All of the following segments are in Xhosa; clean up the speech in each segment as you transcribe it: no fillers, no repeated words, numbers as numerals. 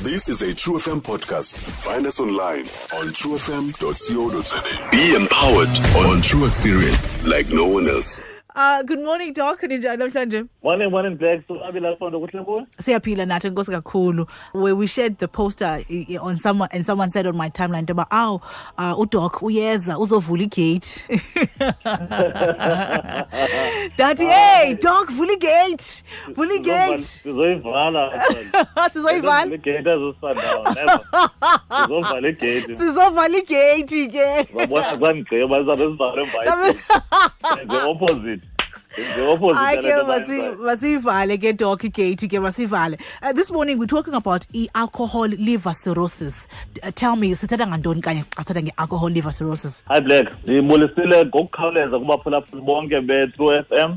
This is a True FM podcast. Find us online on truefm.co.za. Be empowered on True Experience like no one else. Good morning, Doc. Ninjani namhlanje? Morning, morning, Black. So abila fondo kuhle kuwe? Siyaphila nathi, enkosi kakhulu. Where we shared the poster on someone, and someone said on my timeline about, "Oh, uDoc uyeza uzovula igate." Daddy, hey, Doc, vula igate. Vula igate. Sizoyivala. Sizoyivala. Igate azosandawo. Never. Sizovala igate. Sizovala igate ke. Babona kwangigqiba bazabe sivale mva. The opposite. I masivale ke, Doc, igate ke masivale. This morning we're talking about i-alcohol liver cirrhosis. Tell me, sithetha ngantoni kanye xa sithetha nge-alcohol liver cirrhosis? Hi Black, ndibulisile ngokukhawuleza kubaphulaphuli bonke be-True FM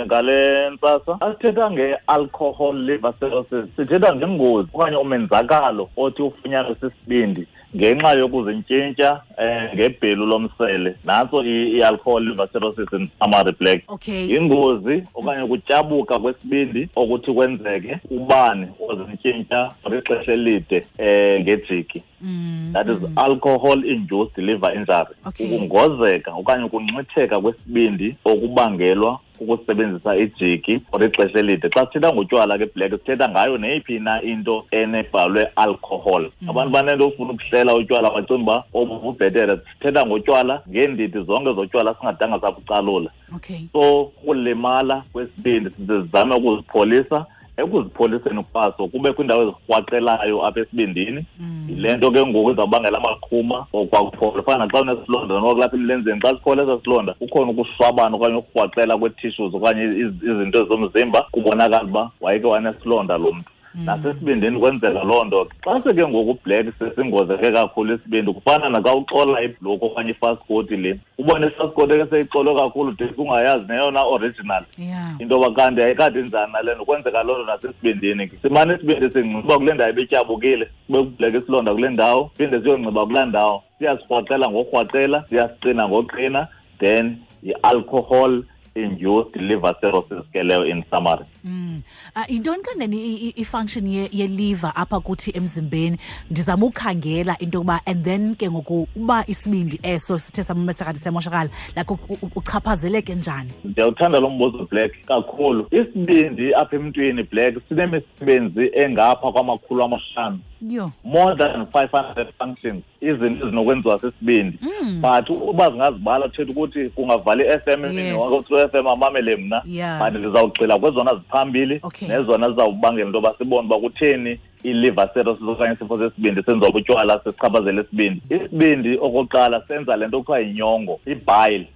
ngale ntsasa. Asithetha nge-alcohol liver cirrhosis, sithetha ngengozi okanye umenzakalo othi ufunyanwe sisibindi ngenxa yokuzintshintsha ngebhelu lomsele. Nantso i-alcohol liver cirrhosis in summary, Black. Okay. Ingozi okanye ukutyabuka kwesibindi okuthi kwenzeke ubani ozintshintsha for ixesha elide ngejiki. That is alcohol induced liver injury. Okay. Ukungozeka okanye ukunxitheka kwesibindi okubangelwa ukusebenzisa ijiki for ixesha elide. Xa sithetha ngotywala ke, Black, sithetha ngayo neyiphi na into enebhalwe alcohol. Abantu banento ofuna ukuhlela utywala bacinga uba obu bubhetere. Sithetha ngotywala ngeendidi zonke zotywala, singadanga sabucalula. Okay. So ukulimala kwesibindi sizame ukuzipholisa. Ekuzipholiseni kwaso kube kwiindawo ezirhwaqelayo apha esibindini. Yile nto ke ngoku izawubangela amaqhuma okwakuphola. Fana naxa unesilonda noba kulapha emilenzeni, xa siphola esaa silonda kukhona ukushwabana okanye ukurhwaqela kwee-tissues okanye izinto zomzimba, kubonakala uba wayeke wanesilonda lo mntu. Nasesibindini kwenzeka loo nto. Xa seke ngoku, Black, sesingozeke kakhulu isibindi, kufana naxa uxola ibhloko okanye ifaskoti le, ubone ifaskoti ke seyixolwe kakhulu de ungayazi neyona original. Into yoba kanti ayikade njani nale nto. Kwenzeka loo nto nasesibindini ke. Simane isibindi singciba kule ndawo ebetyabukile, kube kubleke isilonda kule ndawo, phinde siyongciba kulaa ndawo. Siyasirhwaqela ngokurhwaqela, siyasiqina ngoqina, then yi-alcohol induced liver cirrhosis ke leyo in summary. Yintoni kanene i-function ye-liver apha kuthi emzimbeni? Ndizama ukhangela into yokuba, and then ke ngoku uba isibindi eso sithe samesakade semoshakala, like uchaphazeleke njani? Ndiyawuthanda lo mbuzo, Black, kakhulu. Isibindi apha emntwini, Black, sinemisebenzi engapha kwama-500. Yho. More than 500 functions, izinto ezinokwenziwa sisibindi. But uba zingazibala, thetha ukuthi kungavala i-FM emini wonke, True FM amamele mna. But ndizawugxila kwezona ziphambili nezona zizawubangela into yoba sibone uba kutheni i-liver cirrhosis okanye isifo sesibindi senziwa butywala sichaphazela isibindi. Isibindi okokuqala senza le nto kuthiwa yinyongo, ibile.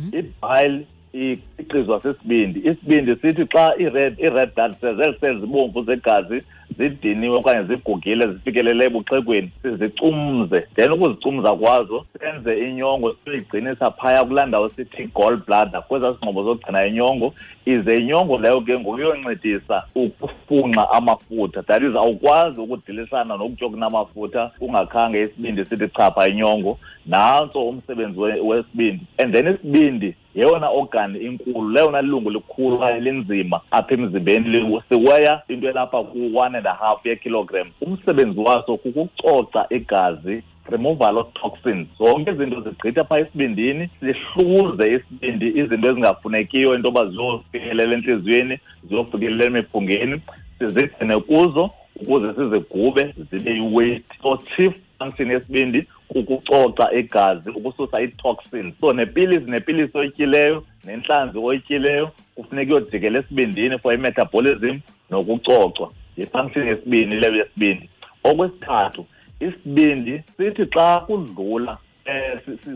Ibile ikhiqizwa sisibindi. Isibindi sithi xa i-red blood cells, ezi cells zibomvu zegazi, zidiniwe okanye zigugile, zifikelele ebuxhegweni, sizicumze. Then ukuzicumza kwazo senze inyongo, siyigcinisa phaya kulaa ndawo sithi gall bladder, kwezaa singxobo zokugcina inyongo. Ize inyongo leyo ke ngoku iyoncedisa ukufunxa amafutha. That is, awukwazi ukudilishana nokutya okunamafutha ungakhange isibindi sithi chapha inyongo. Nantso umsebenzi wesibindi. And then isibindi yeyona organ inkulu, leyona lungu likhulu okanye linzima apha emzimbeni, siweya into elapha ku-1.5 yekilogram. Umsebenzi waso kukucoca igazi, removal of toxins. Zonke izinto zigqitha phaa esibindini, sihluze isibindi izinto ezingafunekiyo into yoba ziyofikelela entliziyweni, ziyofikelela emiphungeni, sizigcine kuzo ukuze sizigube zibe yi-waste. So chief function yesibindi kukucoca igazi, ukususa ii-toxins. So nepilisi oyityileyo nentlanzi oyityileyo kufuneka iyojikela esibindini for i-metabolism nokucocwa. Yi-function yesibini leyo yesibindi. Okwesithathu, isibindi sithi xa kudlula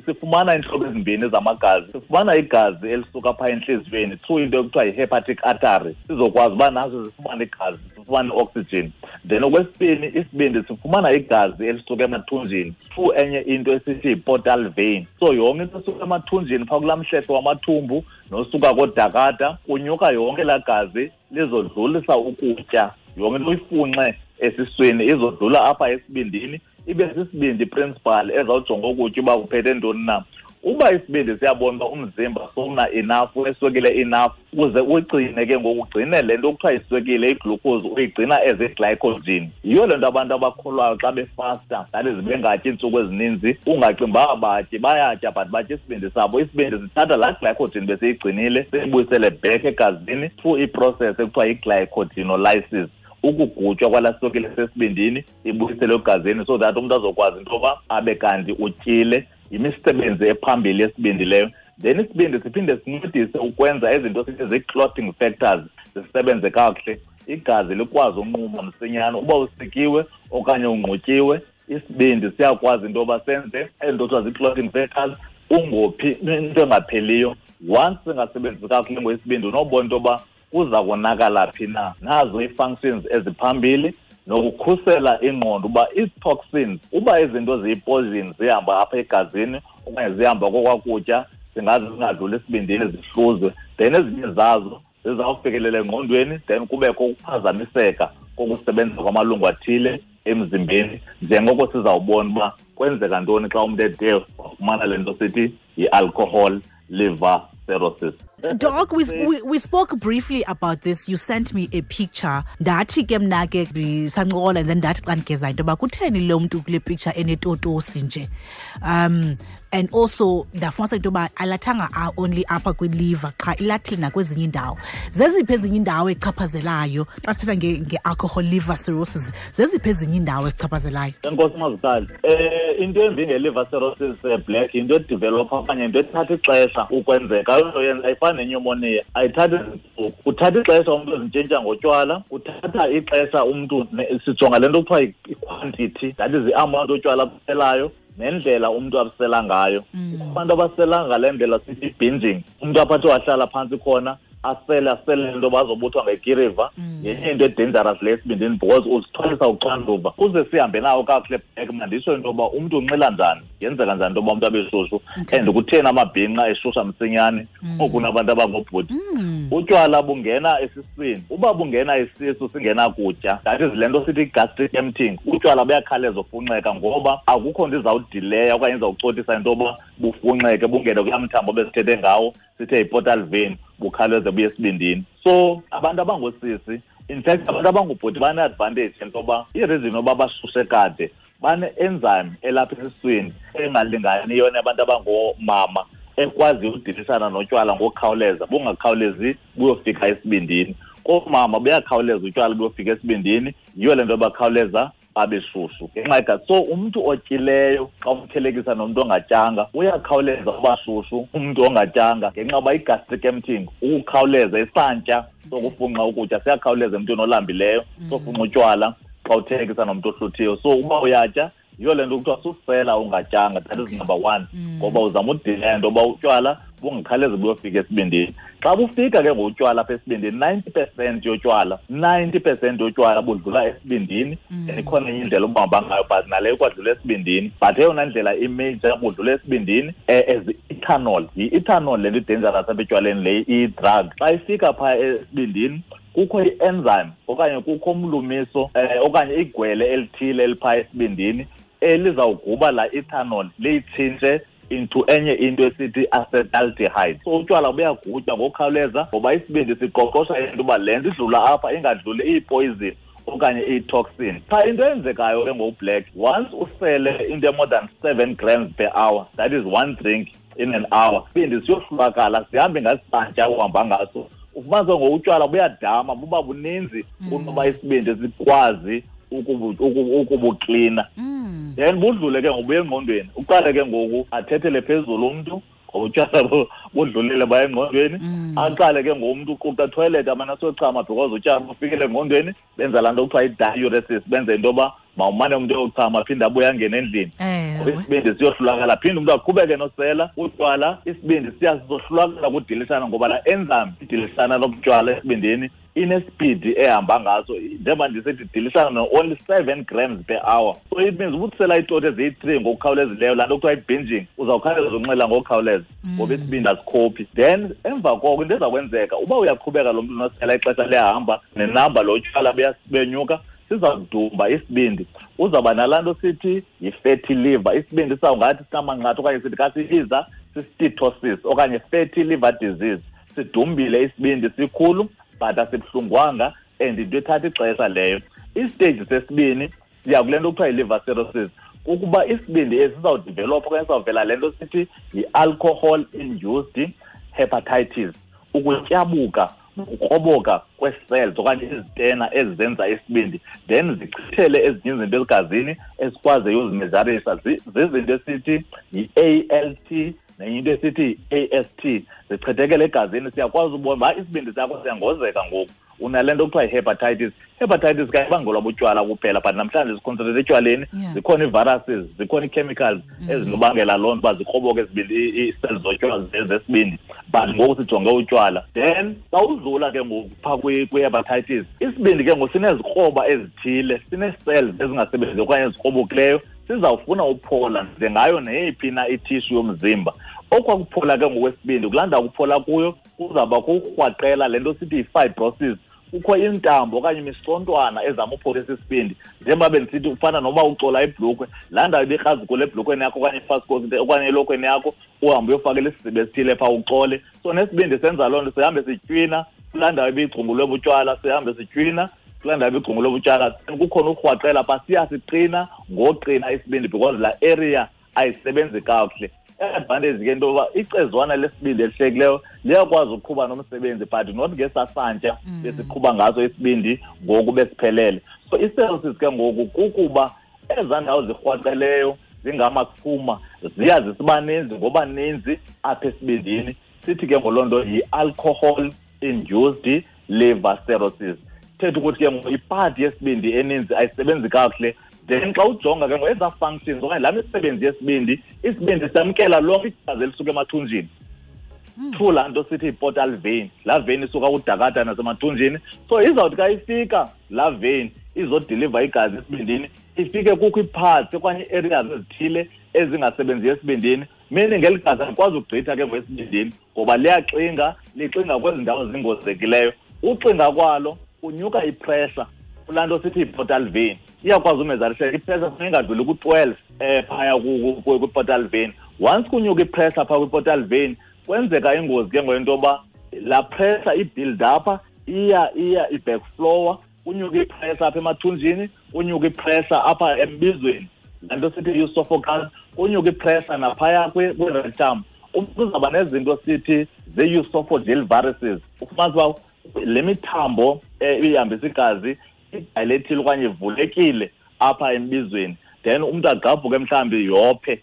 sifumana iintlobo ezimbini zamagazi. Sifumana igazi elisuka phaa entliziyweni through into ekuthiwa yi-hepatic artery, sizokwazi uba nazo zifumane igazi, sifumane i-oxygen. Then okwesibini, isibindi sifumana igazi elisuka emathunjini through enye into esithi yi-portal vein. So yonke into esuka emathunjini phaa kulaa mhlehlo wamathumbu nosuka koodakada, kunyuka yonke laa gazi lizodlulisa ukutya. Yonke into uyifunxe esiswini izodlula apha esibindini, ibe sisibindi principal ezawujonga ukutya uba kuphethe ntoni na. Uba isibindi siyabona uba umzimba sowuna enough, uneswekile enough, uze uyigcine ke ngoku, ugcine le nto kuthiwa iswekile, iglucose, uyigcina as i-glycogen. Yiyo le nto abantu abakholwayo xa befasta, that is bengatyi iintsuku ezininzi, ungacingi uba abatyi, bayatya but batya isibindi sabo. Isibindi sithatha laa glycogen besiyigcinile siyibuyisele back egazini through iprocess ekuthiwa yi-glycogenolysis, ukugutywa kwalaa swekile sesibindini ibuyisele egazini so that umntu azokwazi into yoba abe kanti utyile. Yimisebenzi ephambili yesibindi leyo. Then isibindi siphinde sincedise ukwenza izinto sithi zii-clotting factors zisebenze kakuhle, igazi likwazi unquma msinyane. Uba usikiwe okanye ungqutyiwe, isibindi siyakwazi into yoba senze ezi nto kuthiwa zii-clotting factors, ungophi into engapheliyo. Once singasebenzisi kakuhle ngoisibindi, unobona into yoba kuza konakala phi na. Nazo ii-functions eziphambili, nokukhusela ingqondo uba ii-toxins, uba izinto ziyi-poison zihamba apha egazini okanye zihamba kokwakutya, zingaze zingadluli esibindini zihluzwe, then ezinye zazo zizawufikelela engqondweni, then kubekho ukuphazamiseka kokusebenza kwamalungu athile emzimbeni, njengoko sizawubona uba kwenzeka ntoni xa umntu ede wafumana le nto sithi yi-alcohol liver cirrhosis. Doc, we spoke briefly about this. You sent me a picture. Ndathi ke mna ke sancokola, and then ndathi xa ndigeza into yoba kutheni lo mntu kule picture enetotosi nje. And also ndafumanisa into yoba alathanga only apha kwiliver qha, ilathile nakwezinye iindawo. Zeziphi ezinye iindawo echaphazelayo xa sithetha nge-alcohol liver cirrhosis? Zeziphi ezinye iindawo ezichaphazelayo? Enkosi Mazikhali. Into embi nge-liver cirrhosis, Black, yinto edevelopha okanye into ethatha ixesha ukwenzeka. Ayonto yenza, ayifani nenyumoniya, ayithathi iintsuku. Uthatha ixesha umntu ezintshintsha ngotywala, uthatha ixesha umntu sijonga le nto kuthiwa i-quantity, that is i-amount yotywala abuselayo nendlela umntu abusela ngayo. Abantu abasela ngale ndlela sithi binging, umntu aphathe wahlala phantsi khona asele, asele into bazobuthwa ngekiriva. Yenye into edangerous le esibindini because uzithwalisa uxanduva. Kuze sihambe nawo kakuhle back, manditsho into yoba umntu unxila njani, yenzeka njani into yoba umntu abe shushu, and kutheni amabhinqa eshusha msinyane kunabantu abangobhuti. Utywala bungena esiswini, uba bungena isisu singenakutya, that is le nto sithi gastric emptying, utywala buyakhawuleza ufunxeka ngoba akukho nto izawudileya okanye izawucotisa into yoba bufunxeke bungene kulaa mthambo besithethe ngawo sithe yi-portal vein, bukhawuleze buye esibindini. So abantu abangoosisi, in fact abantu abangubhuti bane-advantage into yoba i-reason yoba bashushe kade, bane-enzyme elapha esiswini engalinganiyo nabantu abangoomama, ekwaziyo udilisana notywala ngokukhawuleza, bungakhawulezi buyofika esibindini. Koomama buyakhawuleza utywala buyofika esibindini, yiyo le nto bakhawuleza babe shushu ngenxa yegazi. So umntu otyileyo xa umthelekisa nomntu ongatyanga, uyakhawuleza uba shushu umntu ongatyanga ngenxa yoba i-gastric emptying, ukukhawuleza isantya sokufunxa ukutya siyakhawuleza emntwini olambileyo, sofunxa utywala xa uthelekisa nomntu ohluthiyo. So uba uyatya, yiyo le nto kuthiwa susela ungatyanga, that is number one, ngoba uzama udileya into yoba utywala bungakhawulezi buyofika esibindini. Xa bufika ke ngotywala apha esibindini, 90% yotywala budlula esibindini. And ikhona enye indlela obuhamba ngayo, but naleyo ikwadlula esibindini. But eyona ndlela imajor budlula esibindini, as ethanol. Yi-ethanol le nto i-dangerous apha etywaleni, le i-drug. Xa ifika phaa esibindini, kukho i-enzyme okanye kukho umlumiso, okanye igwele elithile eliphaa esibindini elizawuguba laa ethanol liyitshintshe into enye into esithi acetaldehyde. So utywala buyagutywa ngokukhawuleza ngoba isibindi siqoqosha into uba le nto idlula apha ingadluli iyipoison okanye iyi-toxin. Qha into eyenzekayo ke ngoBlack, once usele into more than 7 grams per hour, that is one drink in an hour, isibindi siyohlulakala, sihambe ngasantya uhamba ngaso. Ufumanise ngokutywala buyadama, buba buninzi kunoba isibindi sikwazi ukubuklina. Then budlule ke ngobuya engqondweni, uqale ke ngoku athethele phezulu umntu, utywala budlulile baya engqondweni, aqale ke ngomntu uquqa toilet amane asochama because utywala bufikile engqondweni, benza laa nto kuthiwa yi-diuresis, benze into yoba mawumane umntu eyochama aphinde abuye angene endlini. Ngoba isibindi siyohlulakala, phinde umntu aqhubeke nosela utywala, isibindi siyasohlulakala kudilishana ngoba laa enzyme idilisana lobutywala esibindini inespeed ehamba ngaso, njengoba ndisithi idilisana no-only 7 grams per hour. So it means ubukusela iitoti eziyi-3 ngokukhawulezileyo, laa nto kuthiwa yi-binging, uzawukhawuleza unxila ngokukhawuleza ngoba isibindi asikhophi. Then emva koko into eza kwenzeka, uba uyaqhubeka lo mntu unosela ixesha liyahamba nenamba lo tywala buyenyuka, sizawudumba isibindi, uzawuba nalaa nto sithi yi-fatty liver. Isibindi sizawungathi sinamanqatha okanye sithi kasibiza Steatosis okanye fatty liver disease. Sidumbile isibindi sikhulu but asibuhlungwanga and into ethatha ixesha leyo. Istage sesibini siya kule nto kuthiwa yi-liver cirrhosis, ukuba isibindi esi sizawudevelopha okanye sizawuvela le nto sithi yi-alcohol induced hepatitis, ukutyabuka ukukroboka kwee-cells okanye izitena ezizenza isibindi, then zichithele ezinye izinto ezigazini esikwaziyo uzimezarisha. Zizinto esithi yi-ALT nenye into esithi yi-AST, zichithekele egazini. Siyakwazi ubona uba isibindi sakho siyangozeka ngoku, unale nto kuthiwa yi-hepatitis. Hepatitis ke ayibangelwa butywala kuphela, but namhlanje siconcentrate etywaleni. Zikhona ii-viruses, zikhona ii-chemicals ezinobangela loo nto uba zikroboke ezibindi, ii-cells zotywala zesibindi, but ngoku sijonge utywala. Then xa udlula ke ngoku phaa kwi-hepatitis, isibindi ke ngoku sinezikroba ezithile, sinee-cells ezingasebenziyo okanye ezikrobokileyo, sizawufuna uphola njengayo neyiphi na ithishu yomzimba. Okwakuphola ke ngokwesibindi, kulaa ndawo kuphola kuyo kuzawuba kukrwaqela le nto sithi yi-fibrosis. Kukho intambo okanye imisontwana ezama upholisa isibindi, njengoba bendisithi ufana noba ucola ibhlukhwe, laa ndawo ibikrazukule ebhlukhweni yakho okanye ifasikoti okanye elokhweni yakho, uhambe uyofakela isiziba esithile phaa ucole. So nesibindi senza loo nto, sihambe sitywina kulaa ndawo ibigcungulwe butywala, sihambe sitywina kulaa ndawo ibigcungulwe butywala. Kukhona urhwaqela phaa, siyasiqina ngoqina isibindi because laa area ayisebenzi kakuhle. I-advantage ke into yoba icezwana lesibindi elihlekileyo liyakwazi ukuqhuba nomsebenzi, but not ngesasantya besiqhuba ngaso isibindi ngoku besiphelele. So i-cirrhosis ke ngoku kukuba ezaa ndawo zirhwaqeleyo zingamaqhuma ziya zisiba ninzi ngoba ninzi apha esibindini. Sithi ke ngoloo nto yi-alcohol induced liver cirrhosis. Thetha ukuthi ke ngoku ipati yesibindi eninzi ayisebenzi kakuhle. Then xa ujonga ke ngoku ezaa functions okanye laa misebenzi yesibindi, isibindi samkela lonke igazi elisuka emathunjini through laa nto sithi yi-portal vein. Laa vein isuka kudakada nasemathunjini. So izawuthi xa ifika laa vein izodiliva igazi esibindini, ifike kukho ii-parts okanye ii-areas ezithile ezingasebenziyo esibindini, meaning ngeli gazi alikwazi ukugqitha ke ngoku esibindini ngoba liyaxinga, lixinga kwezi ndawo zingozekileyo. Uxinga kwalo kunyuka ipressure kulaa nto sithi yi-portal vein. Iyakwazi umezariseka ipressure, funeka ingadluli ku-12 phaya kwi-portal vein. Once kunyuka ipressure phaa kwi-portal vein, kwenzeka ingozi ke ngoku into yoba laa pressure i-build up, iya i-backflower, kunyuka ipressure apha emathunjini, kunyuka ipressure apha embizweni, laa nto sithi i-esophagus, kunyuka ipressure naphaya kwi-rectum. Umntu uzawuba nezinto sithi zii-esophageal varices. Ufumanisa uba le mithambo ihambisa igazi idayilethile okanye ivulekile apha embizweni, then umntu agqabhuke mhlawumbi yophe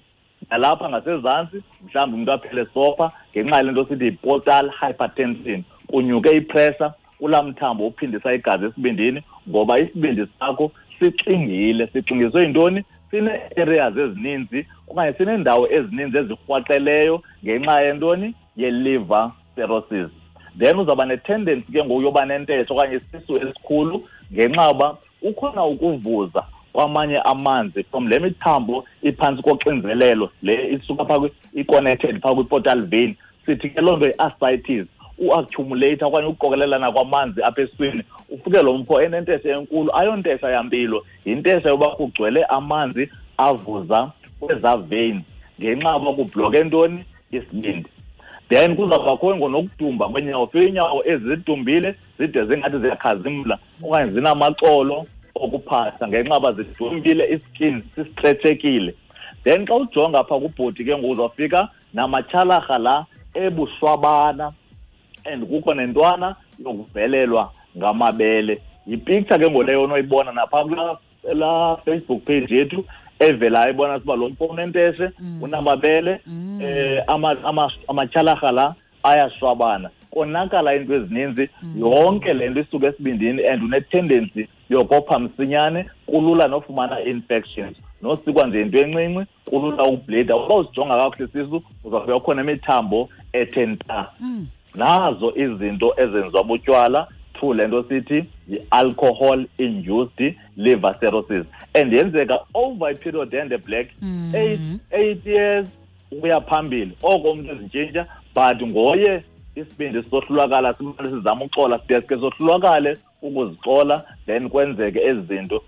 nalapha ngasezantsi, mhlawumbi umntu aphele sopha ngenxa yale nto sithi yi-portal hypertension. Kunyuke ipressure kulaa mthambo uphindisa igazi esibindini ngoba isibindi sakho sixingile. Sixingiswe yintoni? Sinee-areas ezininzi okanye sineendawo ezininzi ezirhwaqeleyo ngenxa yentoni? Ye-liver cirrhosis. Then uzawuba ne-tendency ke ngoku yoba nentesha okanye isisu esikhulu ngenxa yoba kukhona ukuvuza kwamanye amanzi from le mithambo iphantsi koxinzelelo le isuka phaa i-connected phaa kwi-portal vein. Sithi ke loo nto yi-ascites, u-accumulate okanye ukuqokelelana kwamanzi apha esiswini, ufike lo mfo enentesha enkulu. Ayontesha yampilo, yintesha yoba kugcwele amanzi avuza kwezaa veins ngenxa yoba kubhloke ntoni? Isibindi. Then kuzawubakho nokudumba kweenyawo, fike iinyawo ezidumbile zide zingathi ziyakhazimla okanye zinamaxolo okuphahla ngenxa yoba zidumbile, iskin sisitretshekile. Then xa ujonga phaa kubhodi ke ngoku uzawufika namatyhalarha la ebushwabana and kukho nentwana yokuvelelwa ngamabele. Yipicture ke ngoku leyo onoyibona naphaa kulaa laa Facebook page yethu evelayo, ibona uba lo mfo unenteshe, unamabele, amatyhalarha la ayashwabana, konakala iinto ezininzi. Yonke le nto isuka esibindini and une-tendency yokopha msinyane, kulula nofumana infections, nosikwa nje into encinci kulula ukubhlida. Uba usijonga kakuhle isisu uzawufika kukhona imithambo ethe nta. Nazo izinto ezenziwa butywala through le nto sithi yi-alcohol induced liver cirrhosis, and yenzeka over a period and black 8 years ukuya phambili. Oko umntu ezintshintsha, but ngoye isibindi sisohlulakala, simane sizama uxola, sideske sohlulakale ukuzixola, then kwenzeke ezi zinto.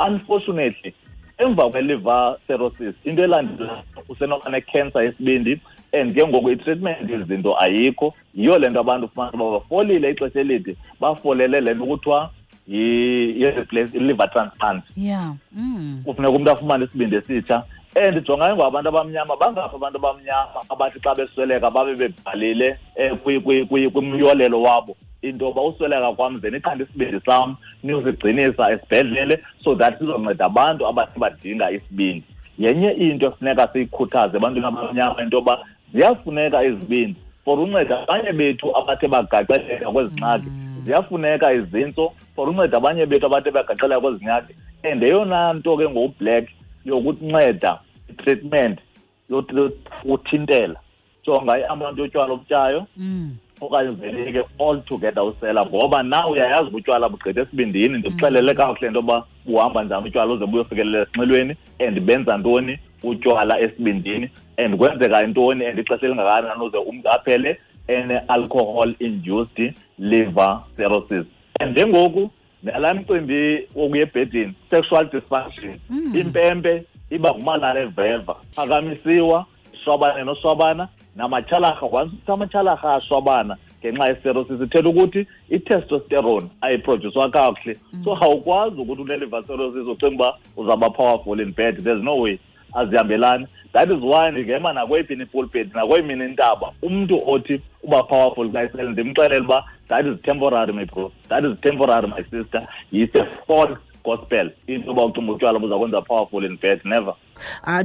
Unfortunately, emva kwe-liver cirrhosis, into elandelayo usenoba ne-cancer yesibindi And ke ngoku i-treatment izinto ayikho. Yiyo le nto abantu ufumana uba bafolile ixesha elide, bafolele le nto kuthiwa i-liver transplant. Kufuneka umntu afumane isibindi esitsha. And jonga ngoku abantu abamnyama, bangaphi abantu abamnyama abathi xa besweleka babe bebhalile kwimyolelo wabo into yoba usweleka kwam ze niqande isibindi sam niyosigcinisa esibhedlele so that sizonceda abantu abathi badinga isibindi. Yenye into efuneka siyikhuthaze ebantwini abamnyama into yoba ziyafuneka izibindi for unceda abanye bethu abathe bagaxeleka kwezi ngxaki. Ziyafuneka izintso for unceda abanye bethu abathe bagaxeleka kwezi ngxaki. And eyona nto ke ngoBlack yokunceda i-treatment yokuthintela, jonga i-amount yotywala obutyayo okanye uveleke all together usela, ngoba na uyayazi utywala bugqitha esibindini. Ndikuxelele kakuhle into yoba buhamba njani utywala uze buyofikelela esinxilweni, and benza ntoni utywala esibindini, and kwenzeka intoni, and ixesha elingakanani uze umntu aphele ene-alcohol induced liver cirrhosis. And njengoku nalaa mcimbi wokuya ebhedini, sexual dysfunction, impempe iba ngumalala eveva, phakamisiwa, shwabane noshwabana, namatyhalarha, once amatyhalarha ashwabana ngenxa ye-cirrhosis, ithetha ukuthi i-testosterone ayiprodyuswa kakuhle. So awukwazi ukuthi une-liver cirrhosis ucinga uba uzawuba powerful in bed. There's no way, azihambelani. That is why ndingema nakweyiphi ipulpit nakweyimini intaba, umntu othi uba powerful xa isele ndimxelele uba that is temporary, my bro, that is temporary, my sister. It's a false gospel into yoba ucinga utywala buza kwenza powerful in bed. Never.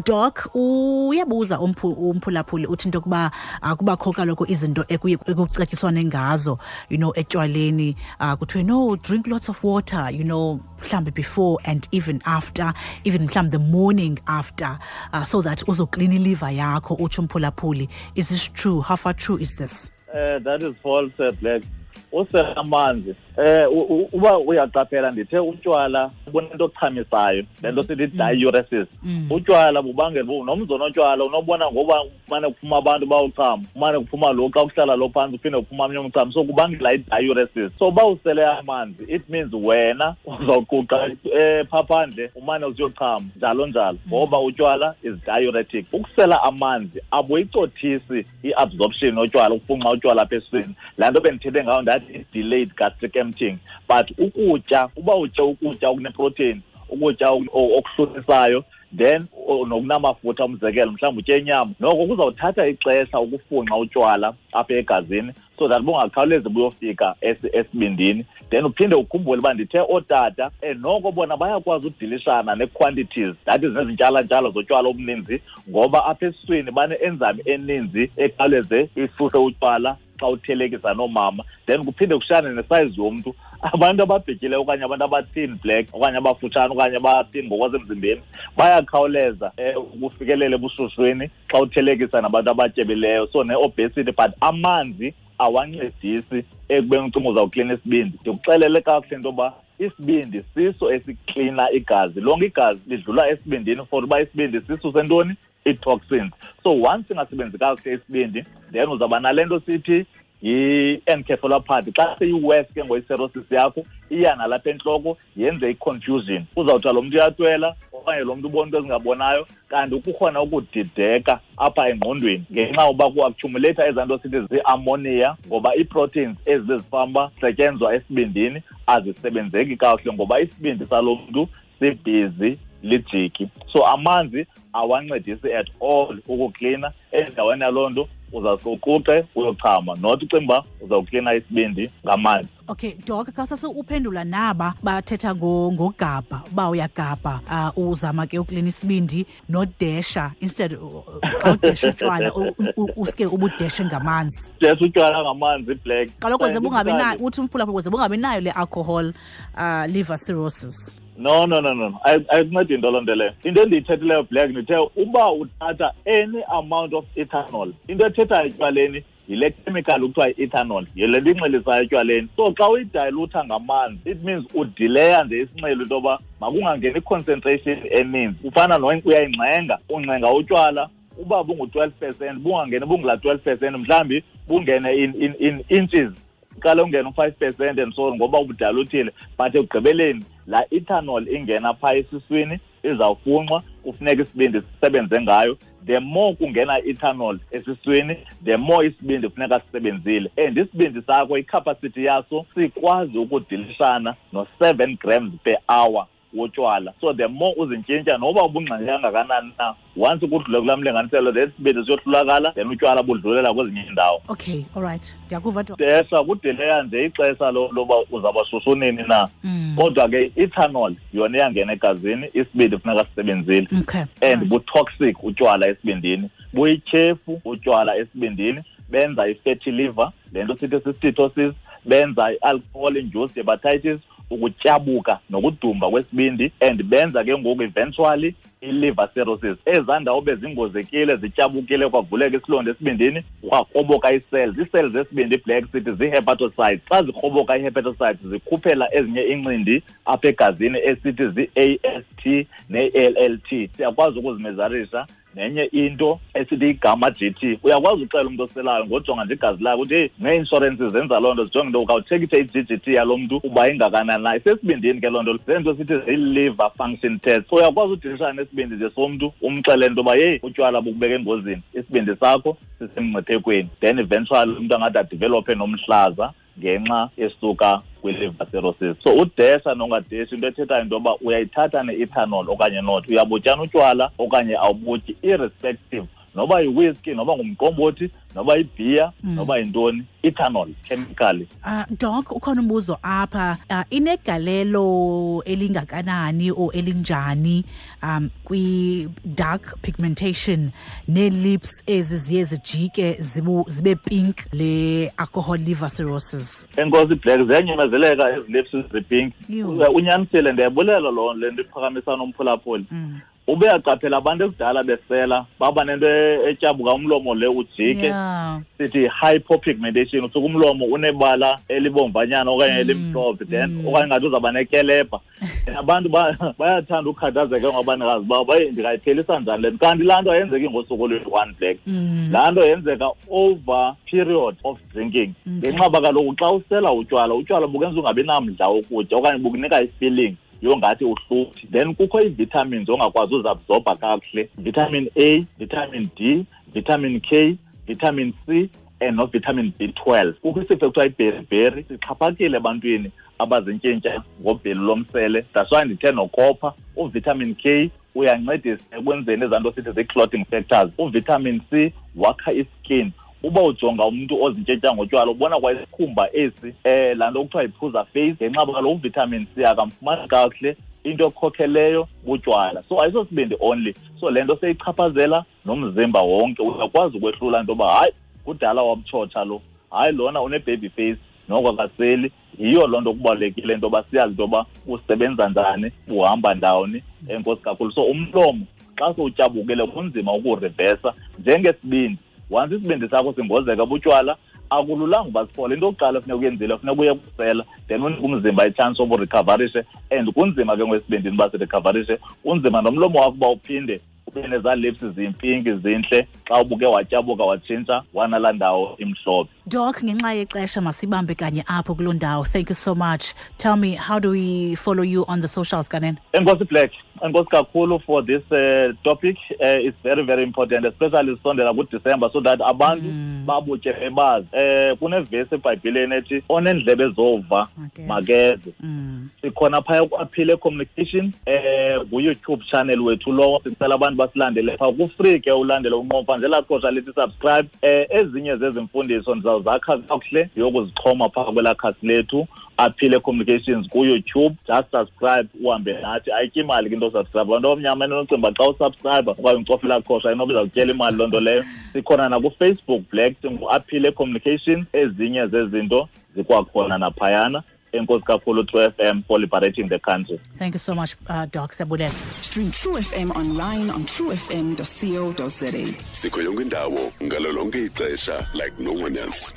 Doc, uyabuza umphulaphuli uthi into yokuba kubakho kaloku izinto ekucetyiswane ngazo, you know, etywaleni, kuthiwe no, drink lots of water, you know, mhlawumbi before and even after, even mhlawumbi the morning after, so that uzoklina iliver yakho. Utsho umphulaphuli, is this true? How far true is this? That is false, Black. Usela amanzi, uba uyaqaphela ndithe utywala bunento ochamisayo, le nto sithi diuresis. Utywala bubangela nomzi onotywala unobona ngoba kumane kuphuma abantu bawuchama, kumane kuphuma lo xa kuhlala lo phantsi uphinde kuphuma omnye umchamo, so kubangela i-diuresis. So uba usele amanzi it means wena uzawuquqa phaa phandle umane usiyochama njalo njalo, ngoba utywala is diuretic. Ukusela amanzi abuyicothisi i-absorption yotywala, ukufunxa utywala apha esiswini. Laa nto bendithethe ngayo ndathi delayed gastric emptying. But ukutya, uba utye ukutya okuneprotein, ukutya okuhluthisayo, then nokunamafutha, umzekelo mhlawumbi utye inyama, noko kuzawuthatha ixesha ukufunxa utywala apha egazini so that bungakhawulezi buyofika esibindini. Then uphinde ukhumbule uba ndithe ootata noko bona bayakwazi udilishana nee-quantities, that is nezintyalantshalo zotywala obuninzi, ngoba apha esiswini bane-enzyme eninzi ekhawuleze isuse utywala xa uthelekisa noomama. Then kuphinde kushiyane nesayizi yomntu. Abantu ababhityileyo okanye abantu abathin black okanye abafutshane okanye abathin ngokwasemzimbeni bayakhawuleza ukufikelela ebushushwini xa uthelekisa nabantu abatyebileyo, so ne-obesity. But amanzi awancedisi ekubeni ucinga uzawuklina isibindi. Ndikuxelele kakuhle into yoba isibindi siso esiklina igazi, lonke igazi lidlula esibindini for uba isibindi siso sentoni? Ii-toxins. So once singasebenzi kakuhle isibindi, then uzawuba nale nto sithi yi-encephalopathy. Xa seyi-worse ke ngoyi-cirrhosis yakho, iya nalapha entloko yenze i-confusion. Uzawuthiwa lo mntu uyatwela okanye lo mntu ubona into ezingabonayo, kanti kukhona ukudideka apha engqondweni ngenxa yoba ku-accumulate ezaa nto sithi zii-ammonia, ngoba ii-proteins ezi bezifamba setyenzwa esibindini azisebenzeki kakuhle ngoba isibindi salo mntu sibhizi lijiki. So amanzi awancedisi at all ukuklina. Endaweni yaloo nto uzawuquqe uyochama, not ucinga uba uzawuklina isibindi ngamanzi. Okay, Doc, xa sase uphendula naba bathetha ngogabha, uba uyagabha, uzama ke uklina isibindi nodesha, instead xa udesha utywala uske ubudeshe ngamanzi. Desha utywala ngamanzi, Black. Kaloku ze bungabi nayo, uthi umphulaphula ze bungabi nayo le alcohol liver cirrhosis. No. Ayikuncedi into loo nto leyo. Into endiyithethileyo, Black, ndithe uba uthatha any amount of ethanol, into ethethayo etywaleni yile chemical kuthiwa yi-ethanol, yile nto inxilisayo etywaleni. So xa uyidayilutha ngamanzi, it means udileya nje isinxilo into yoba makungangeni i-concentration eninzi. Ufana uyayingxenga, ungxenga utywala uba bungu-12%, bungangeni bungula 12%, mhlawumbi bungene in inches, uqale ungene u-5% and so on, ngoba ubudaluthile. But ekugqibeleni La ethanol ingena phaa esiswini izawufunxwa, kufuneka isibindi sisebenze ngayo. The more kungena ethanol esiswini, the more isibindi kufuneka sisebenzile. And isibindi sakho, icapacity yaso sikwazi ukudilishana no-7 grams per hour wotywala. So the more uzintshintsha, noba ubungxenge kangakanani na, once kudlule kulaa mlinganiselo, then isibindi siyohlulakala, then utywala budlulela kwezinye iindawo. Okay, all right. Ndiyakuva. Desha kudileya nje ixesha loba uzawuba shushu nini na. Kodwa ke ethanol yona iyangena egazini, isibindi funeka sisebenzile. Okay. And bu-toxic utywala esibindini, buyityhefu utywala esibindini, benza i-fatty liver, le nto sithi si-steatosis, benza i-alcohol induced hepatitis, ukutyabuka nokudumba kwesibindi, and benza ke ngoku eventually i-liver cirrhosis. Ezaa ndawo bezingozekile, zityabukile, kwavuleka isilonda esibindini, kwakroboka ii-cells. Ii-cells zesibindi, i-black sithi zii-hepatocytes. Xa zikroboka ii-hepatocytes, zikhuphela ezinye iincindi apha egazini esithi zii-AST ne-ALT. Siyakwazi ukuzimezarisha nenye into esithi igama GT. Uyakwazi uxela umntu oselayo ngojonga nje igazi lakhe ukuthi hey, nee-inshorensi zenza loo nto, zijonge into ukawutshekishe i-GGT yalo mntu uba ingakanani na. Isesibindini ke loo nto, zento sithi zii-liver function test. So uyakwazi udilishana nesibindi nje somntu, umxelele into yoba yeyi, utywala bukubeka engozini, isibindi sakho sisemngciphekweni. Then eventually umntu angathi adevelophe nomhlaza ngenxa esuka kwi-liver cirrhosis. So udesha nongadeshi, into ethethayo into yoba uyayithatha ne-ethanol okanye not, uyabutyana utywala okanye awubutyi, irrespective noba yi-whiskey, noba ngumqombothi, noba yibhiya, noba yintoni, ethanol chemically. Doc, ukhona umbuzo apha, inegalelo elingakanani o elinjani kwi-dark pigmentation nee-lips ezi ziye zijike zibe pink, le alcohol liver cirrhosis? Enkosi Black, ziyanyamezeleka ezi lips zipink. Unyanisile, ndiyabulela loo le nto iphakamisa nomphulaphuli. Ube yaqaphela abantu ekudala besela baba nento etyabuka umlomo le ujike. Sithi hypopigmentation, usuke umlomo unebala elibomvanyana okanye elimhlophe, then okanye ngathi uzawuba nekelebha. Abantu bayathanda ukukhathazeka ngabanikazi babo, baye ndingayiphelisa njani le nto? Kanti laa nto ayenzeki ngosuku oluyi-one, Black. Laa nto yenzeka over period of drinking. Ngenxa yoba kaloku xa usela utywala, utywala bukenza ungabi namdla wokutya okanye bukunika i-feeling yongathi uhluthi. Then kukho ii-vitamins ongakwazi uzabsorba kakuhle, vitamin A, vitamin D, vitamin K, vitamin C and no-vitamin B12. Kukho isifo ekuthiwa iberiberi, sixhaphakile ebantwini abazintshintsha ngobhelu lomsele. That's why ndithe nokopha, uvitamin K uyancedisa ekwenzeni ezaa nto sithi zii-clotting factors. Uvitamin C wakha iskin. Uba ujonga umntu ozintshintsha ngotywala, ubona kwa isikhumba esi, laa nto kuthiwa yiphuza face, ngenxa yoba kaloku uvitamin C akamfumani kakuhle, into ekhokheleyo butywala. So ayisosibindi only. So le nto seyichaphazela nomzimba wonke. Uyakwazi ukwehlula into yoba hayi, kudala wamtshotsha lo, hayi lona une-baby face, noko akaseli. Yiyo loo nto kubalulekile into yoba siyazi into yoba usebenza njani, uhamba ndawoni. Enkosi kakhulu. So umlomo xa sowutyabukile kunzima ukuwurivesa njengesibindi. Once isibindi sakho singozeka butywala, akululanga uba siphole. Into yokuqala funeka uyenzile, funeka uye kusela, then unike umzimba itshansi yoba urecoverishe. And kunzima ke ngokwesibindini uba sirecoverishe, kunzima nomlomo wakho uba uphinde ube nezaa lips zimpinki zintle xa ubuke watyabuka watshintsha wanalaa ndawo imhlophe. Doc, ngenxa yexesha masibambe kanye apho kuloo ndawo. Thank you so much. Tell me, how do we follow you on the socials, Kanene? Enkosi Black, enkosi kakhulu for this topic. It's very, very important, especially sisondela kuDecember, so that abantu babutye bebazi. Kunevesi eBhayibhileni ethi onendlebe zova makeze. Sikhona phaya ku-Aphile Communication, ku-YouTube channel wethu lowo. Sicela abantu basilandele phaa. Ku-free ke ulandele unqomfa nje elaa qhosha lithi subscribe. Ezinye zezi mfundiso ndizawuzakha kakuhle ndiyokuzixhoma phaa kwelaa khasi lethu Aphile Communications ku-YouTube. Just subscribe uhambe nathi. Ayityi imali ke into osubscribe. Abantu abamnyama enocinga uba xa usubscribe okanye ucofa elaa qhosha inoba izawutyela imali loo nto leyo. Sikhona nakuFacebook Black, singuAphile Communications. Ezinye zezinto zikwakhona naphayana. Enkosi kakhulu True FM for liberating the country. Thank you so much, Doc. Siyabulela. Stream True FM online on truefm.co.za. Sikho yonke indawo ngalo lonke ixesha like no one else.